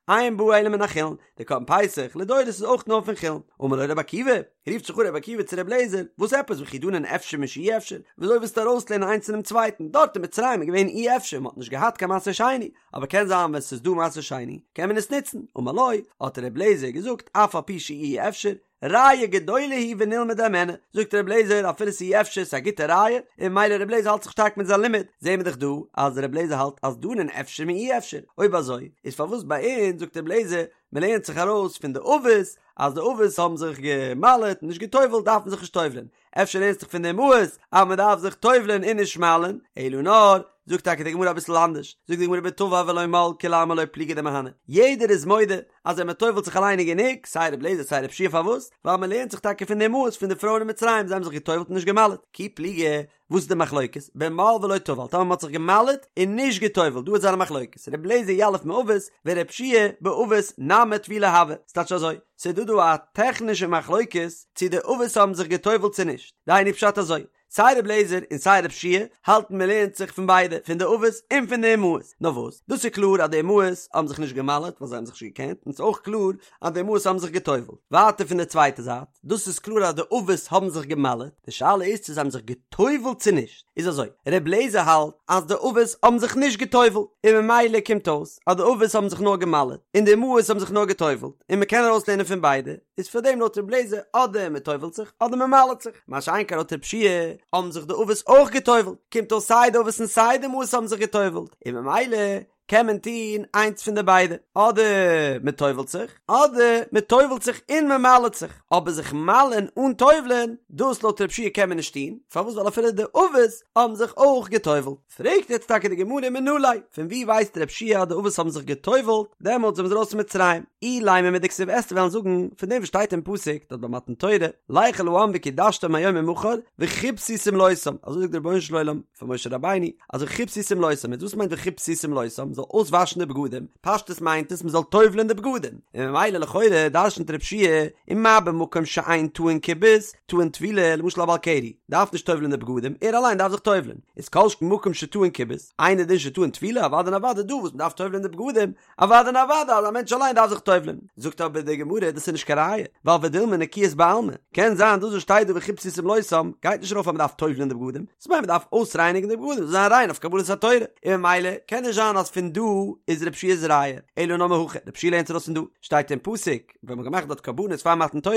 אין בא אלא מן החולין די קרבן פסח לדורות איז אויך נאר פון חולין אמר לו רבי עקיבא רופט זיך אן רבי עקיבא צו רבי אליעזר וואס עפעס וכי דנין אפשר משאי אפשר וויאזוי ווילסטו ארויסלערנען איינס פונעם צווייטן דארט אין מצרים איז געווען אי אפשר מ'האט נישט געהאט קיין מעשר שני אבער קען זיין ווען ס'איז דא מעשר שני קען מען עס נוצן, אמר לו, האט ר' לעזער געזאגט אף על פי שאי אפשר, ראיה גדולה היא ונלמד הימנה, זאגט ר' לעזער אפילו ס'אי אפשר ס'איז א גוטע ראיה, און ממילא ר' לעזער האלט זיך שטארק מיט זיין לימוד, זעהן מיר דאך דא אז ר' לעזער האלט אז דנין אפשר מאי אפשר, אויב אזוי איז פארוואס ביי אונז זאגט ר' לעזער מ'לערנט זיך ארויס פון די אבות אז די אבות האבן זיך גע'מל'עט און נישט גע'טובל'ט דארף מען זיך נישט טובל'ען, אפשר לערנסט זיך פון די אמהות אז מען דארף זיך טובל'ען און נישט מל'ען, אלא נאר, זאגט טאקע די גמרא אביסל אנדערש, זאגט די גמרא בטבל ולא מל כולי עלמא לא פליגי דמהני, יעדער איז מודה אז ווען מען טובל'ט זיך אליין איז גענוג, סיי ר' אליעזר סיי ר' יהושע פארוואס? ווייל מען לערנט זיך טאקע פון די אמהות פון די פרויען אין מצרים זיי האבן זיך געטובל'ט און נישט געמל'עט, כי פליגי, וואס איז די מחלוקת? במל ולא טבל, טאמער מען האט זיך געמל'עט און נישט געטובל'ט, דא איז זייער מחלוקת, ר' אליעזר יליף מאבות ור' יהושע באבות נמי טבילה הוי, ס'טייטש אזוי, ס'איז דא דא א טעכנישע מחלוקת צו די אבות האבן זיך געטובל'ט צו נישט, דהיינו פשט אזוי, סיי ר' אליעזר און סיי ר' יהושע האלטן מען לערנט זיך פון ביידע, פון די אבות און פון די אמהות, נאר וואס, דאס איז קלאר אז די אמהות האבן זיך נישט געמל'עט ווייל זיי האבן זיך נישט געקענט, און ס'איז אויך קלאר אז די אמהות האבן זיך געטובל'ט. ווייטער פון די צווייטע זייט, דאס איז קלאר אז די אבות האבן זיך געמל'עט, די שאלה איז צו זיי האבן זיך געטובל'ט צו נישט, איז אזוי, ר' אליעזר האלט אז די אבות האבן זיך נישט געטובל'ט, און ממילא קומט אויס אז די אבות האבן זיך נאר געמל'עט, און די אמהות האבן זיך נאר געטובל'ט, און מען קען ארויסלערנען פון ביידע, איז פאר דעם לויט ר' אליעזר אדער מען טובל'ט זיך אדער מען מל'עט זיך, מה שאין כן לויט ר' יהושע האבן זיך די אבות אויך געטובל'ט, קומט אויס סיי די אבות און סיי די אמהות האבן זיך געטובל'ט, און ממילא קען מען טון איינס פון די ביידע, אדער מען טובל'ט זיך, אדער מען טובל'ט זיך און מען מל'עט זיך, אבער זיך מל'ען אן טובל'ען, דאס לויט ר' יהושע קען מען נישט טון, פארוואס ווייל אפילו די אבות האבן זיך אויך געטובל'ט. פרעגט יעצט טאקע די גמרא מנא ליה, פון וואו ווייסט ר' יהושע אז די אבות האבן זיך געטובל'ט דעמאלטס ווען מ'איז ארויס פון מצרים? אילימא מדכתיב וועסטו וועלן זאגן פון דעם וואס שטייט אין פסוק דארט ביי מתן תורה, לך אל העם וקדשתם היום ומחר וכבסו שמלותם, אזוי זאגט דער רבונו של עולם פאר משה רבינו, אז וכבסו שמלותם, איז וואס מיינט וכבסו שמלותם? מ'זאל אויסוואשן די בגדים, פשטות מיינט עס מ'זאל טובל'ען די בגדים, און ממילא לכאורה דרש'נט רב שיע ומה במקום שאין טעון כיבוס, טעון טבילה, למשל א בעל קרי דארף נישט טובל'ען די בגדים, ער אליין דארף זיך טובל'ען, איז כל שכן מקום שטעון כיבוס, אינו דין שטעון טבילה, אוודאי און אוודאי דא וואס מ'דארף טובל'ען די בגדים, אוודאי און אוודאי אז א מענטש אליין דארף זיך טובל'ען. זאגט אבער די גמרא דאס איז נישט קיין ראיה, ווייל ודילמא נקיות בעלמא, קען זיין דאס וואס שטייט דא וכבסו שמלותם גייט נישט ארויף אז מ'דארף טובל'ען די בגדים, ס'מיינט מ'דארף אויסרייניגן די בגדים זאל זיין ריין אויף קבלת התורה, און ממילא קען נישט זיין אז פון דא איז רב שיע'ס ראיה, אלא נאר מהכא, רב שיע לערנט ארויס פון דא, שטייט אין פסוק, ווען מ'האט געמאכט דארט קרבנות פאר מתן תורה,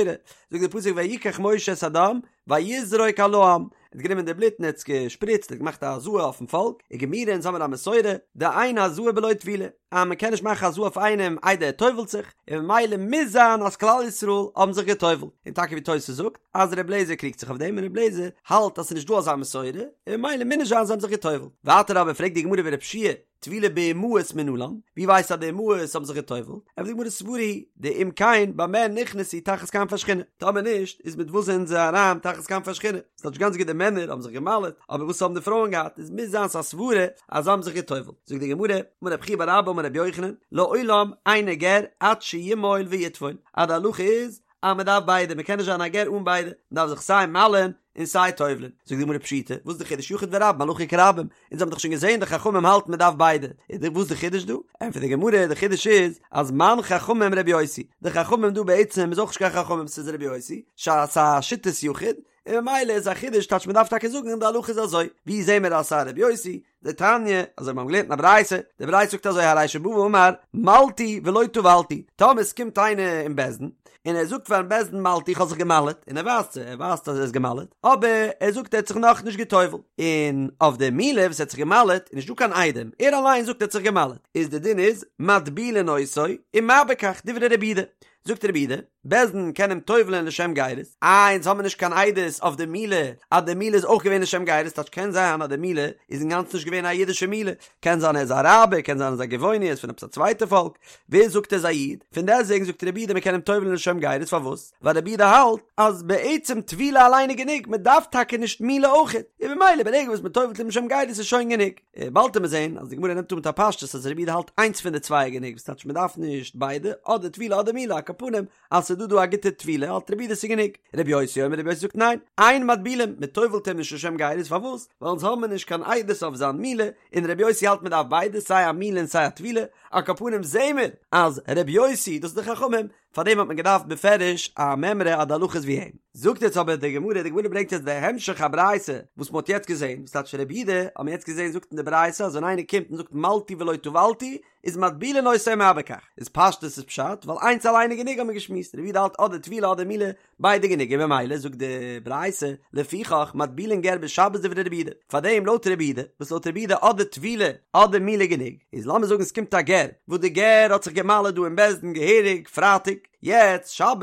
זאגט דער פסוק ויקח משה את הדם ויזרוק על העם, ער האט גענומען די בלוט און ער האט עס געשפריצט, ער האט געמאכט א הזאה אויפן פאלק, וגמירי אונז האמיר א מסורה, דאין הזאה בלא טבילה, אז מען קען נישט מאכן הזאה אויף איינעם איידער ער טובל'ט זיך, און ממילא מוז זיין אז כלל ישראל האבן זיך געטובל'ט, און טאקע ווי תוס' זאגט אז ר' לעזער קריגט זיך אויף דעם און ר' לעזער האלט אז ס'איז נישט דא אזא מסורה, און ממילא מוז נישט זיין זיי האבן זיך געטובל'ט. ווייטער אבער פרעגט די גמרא ורב שיע, טבילה באמהות מנלן, ווי ווייסטו אז די אמהות האבן זיך געטובלט? ענטפערט די גמרא סברא היא דאם כן במה נכנסו תחת כנפי השכינה, טאמער נישט איז מיט וואס זענען זיי אריין תחת כנפי השכינה? ס'טייטש גאנץ גוט די מענער האבן זיך געמל'עט, אבער וואס האבן די פרויען געהאט? איז מוז זיין ס'א סברה אז זיי האבן זיך געטובלט. זאגט די גמרא, אמר רב חייא בר אבא אמר רבי יוחנן, לעולם אינו גר עד שימול ויטבול, אז די הלכה איז אז מען דארף ביידע, מען קען נישט זיין א גר אן ביידע, מען דארף זיך סיי מל'ען און סיי טובל'ען. זאגט די גמרא פשיטא, וואס איז די חידוש יחיד ורבים הלכה כרבים, אונז האבן דאך שוין געזען די חכמים האלטן מען דארף ביידע, איז די וואס די חידוש דא? ענטפערט די גמרא, די חידוש איז אז מאן חכמים רבי יוסי, די חכמים דא בעצם איז אויך נישט קיין חכמים ס'איז רבי יוסי, ס'איז א שיטת יחיד, און ממילא איז א חידוש טייטש מען דארף טאקע זאגן די הלכה איז אזוי, ווי זעהן מיר אז ס'איז א רבי יוסי? דתניא, אזוי מיר האבן געלערנט אין א ברייתא, די ברייתא זאגט אזוי הרי שבא ואמר מלתי ולא טבלתי, טאמער עס קומט איינער אין בית דין, און ער זאגט פארן בית דין מלתי איך האב זיך געמל'עט, און ער ווייזט זיי, ער ווייזט אז ער איז געמל'עט, אבער ער זאגט ער האט זיך נאכנישט גע'טובל'ט, און אויף די מילה וואס ער האט זיך געמל'עט איז נישטא קיין עדים, ער אליין זאגט ער האט זיך געמל'עט, איז די דין איז מטבילין אותו, ומה בכך, דברי רבי יהודה, זאגט רבי יהודה, בית דין קען אים טובל'ען לשם גירות, איי אונז האמיר נישט קיין עדות אויף די מילה אז די מילה איז אויך געווען לשם גירות, טייטש קען זיין אז די מילה איז אינגאנצן נישט געווען א אידישע מילה, קען זיין ער איז א אראבער, קען זיין ער איז א גבעוני, ער איז פון עפעס א צווייטע פאלק, ווער זאגט ער איז א איד? פון דעסטוועגן זאגט רבי יהודה מען קען אים טובל'ען לשם גירות, פארוואס? ווייל רבי יהודה האלט אז בעצם טבילה אליין איז גענוג, מען דארף טאקע נישט מילה אויכעט, און ממילא ברגע וואס מען טובל'ט אים לשם גירות איז שוין גענוג. באלד וועט מען זעהן אז די גמרא נעמט אן מיט א פשטות אז רבי יהודה האלט איינס פון די צוויי איז גענוג וואס טייטש מען דארף נישט ביידע אדער טבילה אדער מילה על כל פנים אז ס'איז דא דא א גוטע טבילה האלט רבי יהודה ס'איז גענוג רבי יוסי אומר רבי יוסי זאגט ניין אין מטבילין מען טובל'ט אים נישט לשם גירות פארוואס ווייל אונז האבן מיר נישט קיין עדות אויף זיין מילה און רבי יוסי האלט מען דארף ביידע סיי א מילה און סיי א טבילה על כל פנים זעהן מיר אז רבי יוסי דאס איז די חכמים פאר דעם האט מען געדארפט בפירוש א מימרא אז די הלכה איז ווי אים. זאגט יעצט אבער די גמרא, די גמרא ברענגט יעצט די המשך הברייתא וואס מען האט יעצט געזען, וואס טייטש רבי יהודה, האט מען יעצט געזען זאגט אין די ברייתא אז ווען איינער קומט און זאגט מלתי ולא טבלתי איז מטבילין אותו ומה בכך, איז פשטות איז פשט ווייל איינס אליין איז גענוג האט מען געשמועסט, רבי יהודה האלט אדער טבילה אדער מילה ביידע גענוג און ממילא זאגט די ברייתא לפיכך מטבילין גר בשבת דברי רבי יהודה, פארדעם לויט רבי יהודה, וואס לויט רבי יהודה אדער טבילה אדער מילה גענוג, איז לאמיר זאגן ס'קומט א גר, וואס די גר האט זיך גע'מל'עט דא אין בית דין געהעריג פרייטאג, יעצט שבת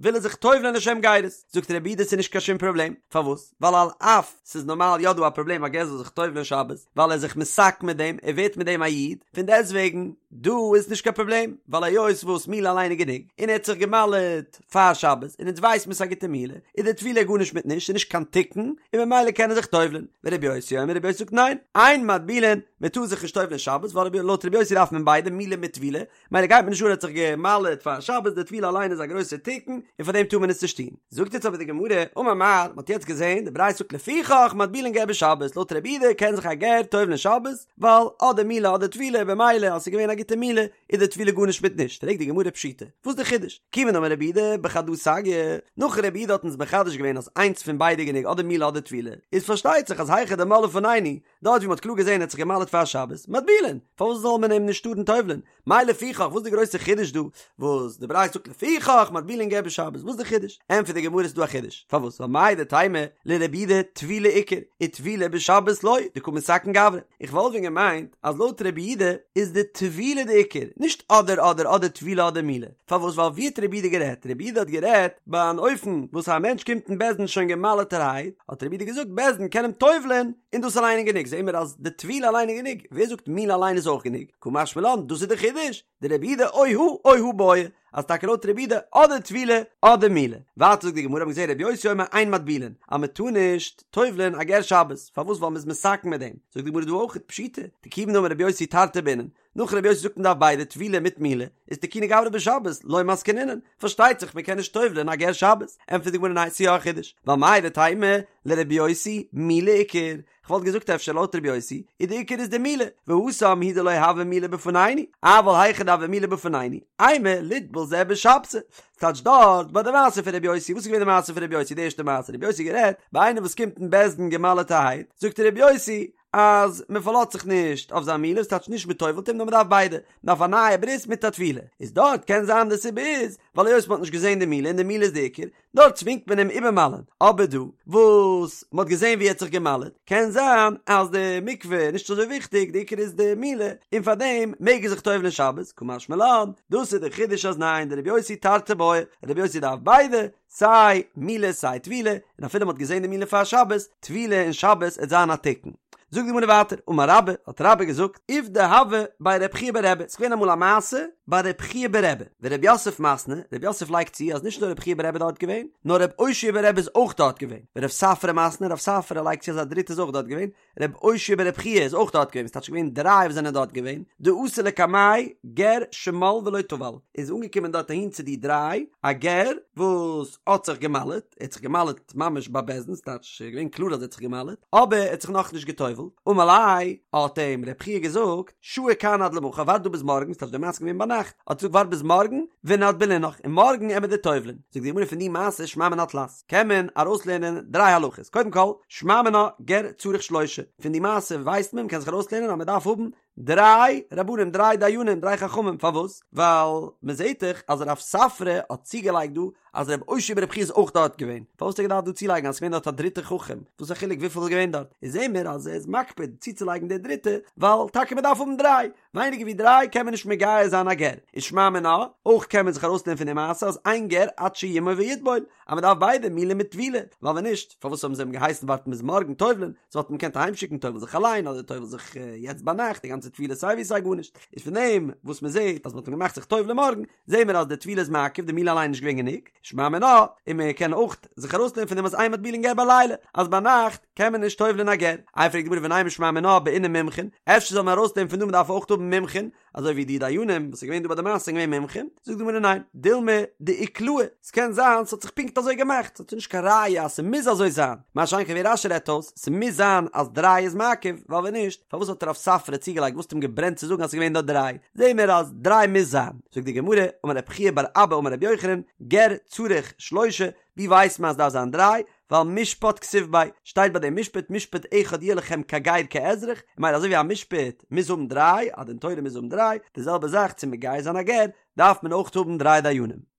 וויל ער זיך טובל'ען לשם גירות, זאגט רבי יהודה ס'איז נישט קיין שום פראבלעם, פארוואס? ווייל על אף ס'איז נארמאל יא דא א פראבלעם א גר זאל זיך טובל'ען שבת, ווייל ער איז זיך מתקן מיט דעם, ער ווערט מיט דעם א איד, פון דעסטוועגן דא איז נישט קיין פראבלעם, ווייל היות וואס מילה אליין איז גענוג, און ער האט זיך גע'מל'עט פאר שבת, און אונז ווייסט מען ס'איז א גוטע מילה, איז די טבילה גארנישט מיט נישט, ס'איז נישט קיין תיקון, און ממילא קען ער זיך טובל'ען. ורבי יוסי אומר רבי יוסי זאגט ניין, אין מטבילין, מען טאר זיך נישט טובל'ען שבת, ווייל לויט רבי יוסי דארף מען ביידע, מילה מיט טבילה, מילא גייט מיר נישט אן ער האט זיך גע'מל'עט פאר שבת, די טבילה אליין איז א גרויסע תיקון, און פאר דעם טאר מען עס נישט טון. זאגט יעצט אבער די גמרא, אמר מר, מען האט יעצט געזען, די ברייתא זאגט לפיכך מטבילין גר בשבת, לויט רבי יהודה קען זיך א גר טובל'ען שבת, ווייל אדער מילה אדער טבילה, במילא אז ס'איז געווען א גוטע מילה, איז די טבילה גארנישט מיט נישט, פרעגט די גמרא פשיטא, וואס די חידוש? כיוון דאמר רבי יהודה בחדא סגיא, נאך רבי יהודה האט אונז מחדש געווען אז איינס פון ביידע גענוג אדער מילה אדער טבילה, איז פארשטייט זיך אז היכא דמל לפנינו, דארט ווי מ'האט קלאר געזען ער האט זיך געמל'עט פאר שבת, מטבילין, פארוואס זאל מען אים נישט טארן טובל'ען? מאי לפיכך, וואס איז די גרויסע חידוש דא וואס די ברייתא זאגט לפיכך מטבילין גר בשבת, וואס איז די חידוש? ענטפערט די גמרא ס'איז דא א חידוש, פארוואס? ווייל מהו דתימא לרבי יהודה טבילה עיקר, וטבילה בשבת לא, דקא מתקן גברא. איך וואלט ווען געמיינט אז לויט רבי יהודה איז די טבילה די עיקר, נישט אדער אדער אדער טבילה אדער מילה. פארוואס? ווייל ווי האט רבי יהודה גערעדט? רבי יהודה האט גערעדט ביי אן אופן וואס א מענטש קומט אין בית דין שוין גע'מל'עטערהייט, האט רבי יהודה געזאגט בית דין קען אים טובל'ען און דאס אליין איז גענוג. זעהן מיר אז די טבילה אליין איז גענוג, ווער זאגט מילה אליין איז אויך גענוג? קא משמע לן, דאס איז די חידוש, דרבי יהודה או הא או הא בעי, אז טאקע לויט רבי יהודה אדער טבילה אדער מילה. ווייטער זאגט די גמרא, האבן געזעהן רבי יוסי אומר אין מטבילין, אז מען טאר נישט טובל'ען א גר שבת, פארוואס ווייל מען איז מתקן מיט דעם, זאגט די גמרא דא אויך פשיטא, דכיון דאמר רבי יוסי תרתי בעינן, נאך רבי יוסי זאגט מען דארף ביידע טבילה מיט מילה, איז תקוני גברא בשבת, לא מתקנינן, פארשטייט זיך מען קען נישט טובל'ען א גר שבת, ענטפערט די גמרא ניין ס'איז יא א חידוש, ווייל מהו דתימא לרבי יוסי מילה עיקר, כ'וואלט געזאגט אפשר לויט רבי יוסי איז די עיקר איז די מילה, והתם הוא דלא הוה מילה בפנינו, אבל היכא דהוה מילה בפנינו, אימא ליטבול זה בשבתא, ס'טייטש דארט ביי די מעשה פון רבי יוסי, וואס איז געווען די מעשה פון רבי יוסי די ערשטע מעשה, רבי יוסי גערעדט ביי איינער וואס קומט אין בית דין גע'מל'עטערהייט, זאגט רבי יוסי אז מען פארלאזט זיך נישט אויף זיין מילה, ס'טייטש נישט מען טובל'ט אים נאר מען דארף ביידע, מען דארף א נייע ברית מיט א טבילה, איז דארט קען זיין די סיבה איז ווייל היות מען האט נישט געזען די מילה און די מילה איז די עיקר, דארט צווינגט מען אים איבערמל'ען, אבער דא וואס מען האט געזען ווי ער האט זיך געמל'עט, קען זיין אז די מקווה איז נישט אזוי וויכטיג, די עיקר איז די מילה, און פארדעם מעג ער זיך טובל'ען שבת, קא משמע לן, דאס איז די חידוש אז ניין, דרבי יוסי תרתי בעי, רבי יוסי דארף ביידע, סיי מילה סיי טבילה, און אפילו מען האט געזען די מילה פאר שבת, טבילה אין שבת עט זיין א תיקון. זאגט די גמרא ווייטער, אמר רבה, האט רבה געזאגט, עובדא הוה בי רב חייא בר רבי, ס'איז געווען אמאל א מעשה ביי רב חייא בר רבי, ורב יוסף מתני, רב יוסף לייגט צו אז נישט נאר רב חייא בר רבי איז דארט געווען, נאר רב אושעיא בר רבי איז אויך דארט געווען, ורב ספרא מתני, רב ספרא לייגט צו אז א דריטע איז אויך דארט געווען, רב אושעיא בר רב חייא איז אויך דארט געווען, ס'טייטש געווען דריי וואס זענען דארט געווען, דאתא לקמייהו גר שמל ולא טבל, איז אנגעקומען דארט אהין צו די דריי, א גר וואס האט זיך געמל'עט, ער האט זיך געמל'עט ממש ביי בית דין, ס'טייטש ס'איז געווען קלאר אז ער האט זיך געמל'עט, אבער ער האט זיך נאכנישט גע'טובל'ט, אמר ליה, האט אים רב חייא געזאגט, שהי כאן עד למחר, ווארט דא ביז מארגן, ס'טייטש די מעשה איז געווען ביינאכט, האט געזאגט ווארט ביז מארגן, ונטבלינך, און מארגן עמיר דיר טובל'ען, זאגט די גמרא פון די מעשה שמע מינה תלת. קען מען ארויסלערנען דריי הלכות, קודם כל, שמע מינה גר צריך שלושה, פון די מעשה ווייסט מען, מ'קען זיך ארויסלערנען אז מ'דארף האבן דריי רבנים, דריי דיינים, דריי חכמים, פארוואס? ווייל מ'זעט דאך אז רב ספרא האט צוגעלייגט דא אז רב אושעיא בר רב חייא איז אויך דארט געווען, פארוואס האט ער געדארפט דא צולייגן אז ס'געווען דארט א דריטע חכם, וואס איז א חילוק וויפיל איז געווען דארט, איז זעהן מיר אז ער איז מקפיד צוצולייגן די דריטע, ווייל טאקע מ'דארף האבן דריי, ווייניגער ווי דריי קען מען נישט מגייר זיין א גר, איז שמע מינה, אויך קען מען זיך ארויסלערנען פון די מעשה אז אין גר עד שימול ויטבול, אז מען דארף ביידע מילה מיט טבילה, ווייל ווען נישט, פארוואס האבן זיי אים געהייסן ווארטן ביז מארגן טובל'ען, זיי וואלטן אים געקענט אהיימשיקן טובל זיך אליין אדער טובל זיך יעצט ביינאכט, די גאנצע טבילה סיי ווי סיי גארנישט, איז פון דעם וואס מען זעט אז מען האט אים געמאכט זיך טובל'ען מארגן, זעהן מיר אז די טבילה איז מעכב, די מילה אליין איז נישט געווען גענוג, שמע מינה, און מען קען אויך זיך ארויסלערנען פון דעם אז אין מטבילין גר בלילה, אז ביינאכט קען מען נישט טובל'ען א גר. איי פרעגט די גמרא ונימא שמע מינה בעינן מומחין, אפשר זאל מען ארויסלערנען פון דא מען דארף אויך האבן מומחין, אזוי ווי די דיינים וואס איז געווען דא ביי די מעשה זענען געווען מומחים, זאגט די גמרא ניין, דילמא דאיקלעו, ס'קען זיין ס'האט זיך פונקט אזוי געמאכט, ס'האט נישט קיין ראיה אז ס'מוז אזוי זיין, מה שאין כן ווי רש"י רעדט אויס, ס'מוז זיין אז דריי איז מעכב, ווייל ווען נישט, פארוואס האט רב ספרא צוגעלייגט וואס האט אים געברענט צו זאגן אז ס'איז געווען דארט דריי, זעהן מיר אז דריי מוז זיין, זאגט די גמרא, אמר רב חייא בר אבא אמר רבי יוחנן, גר צריך שלושה, ווי ווייסט מען אז דארף זיין דריי, ווייל משפט כתיב ביה, שטייט ביי דעם משפט משפט אחד יהיה לכם כגר כאזרח, און ממילא אזוי ווי א משפט מוז האבן דריי, א דין תורה מוז האבן דריי, די זעלבע זאך צו מגייר זיין א גר, דארף מען אויך האבן דריי דיינים.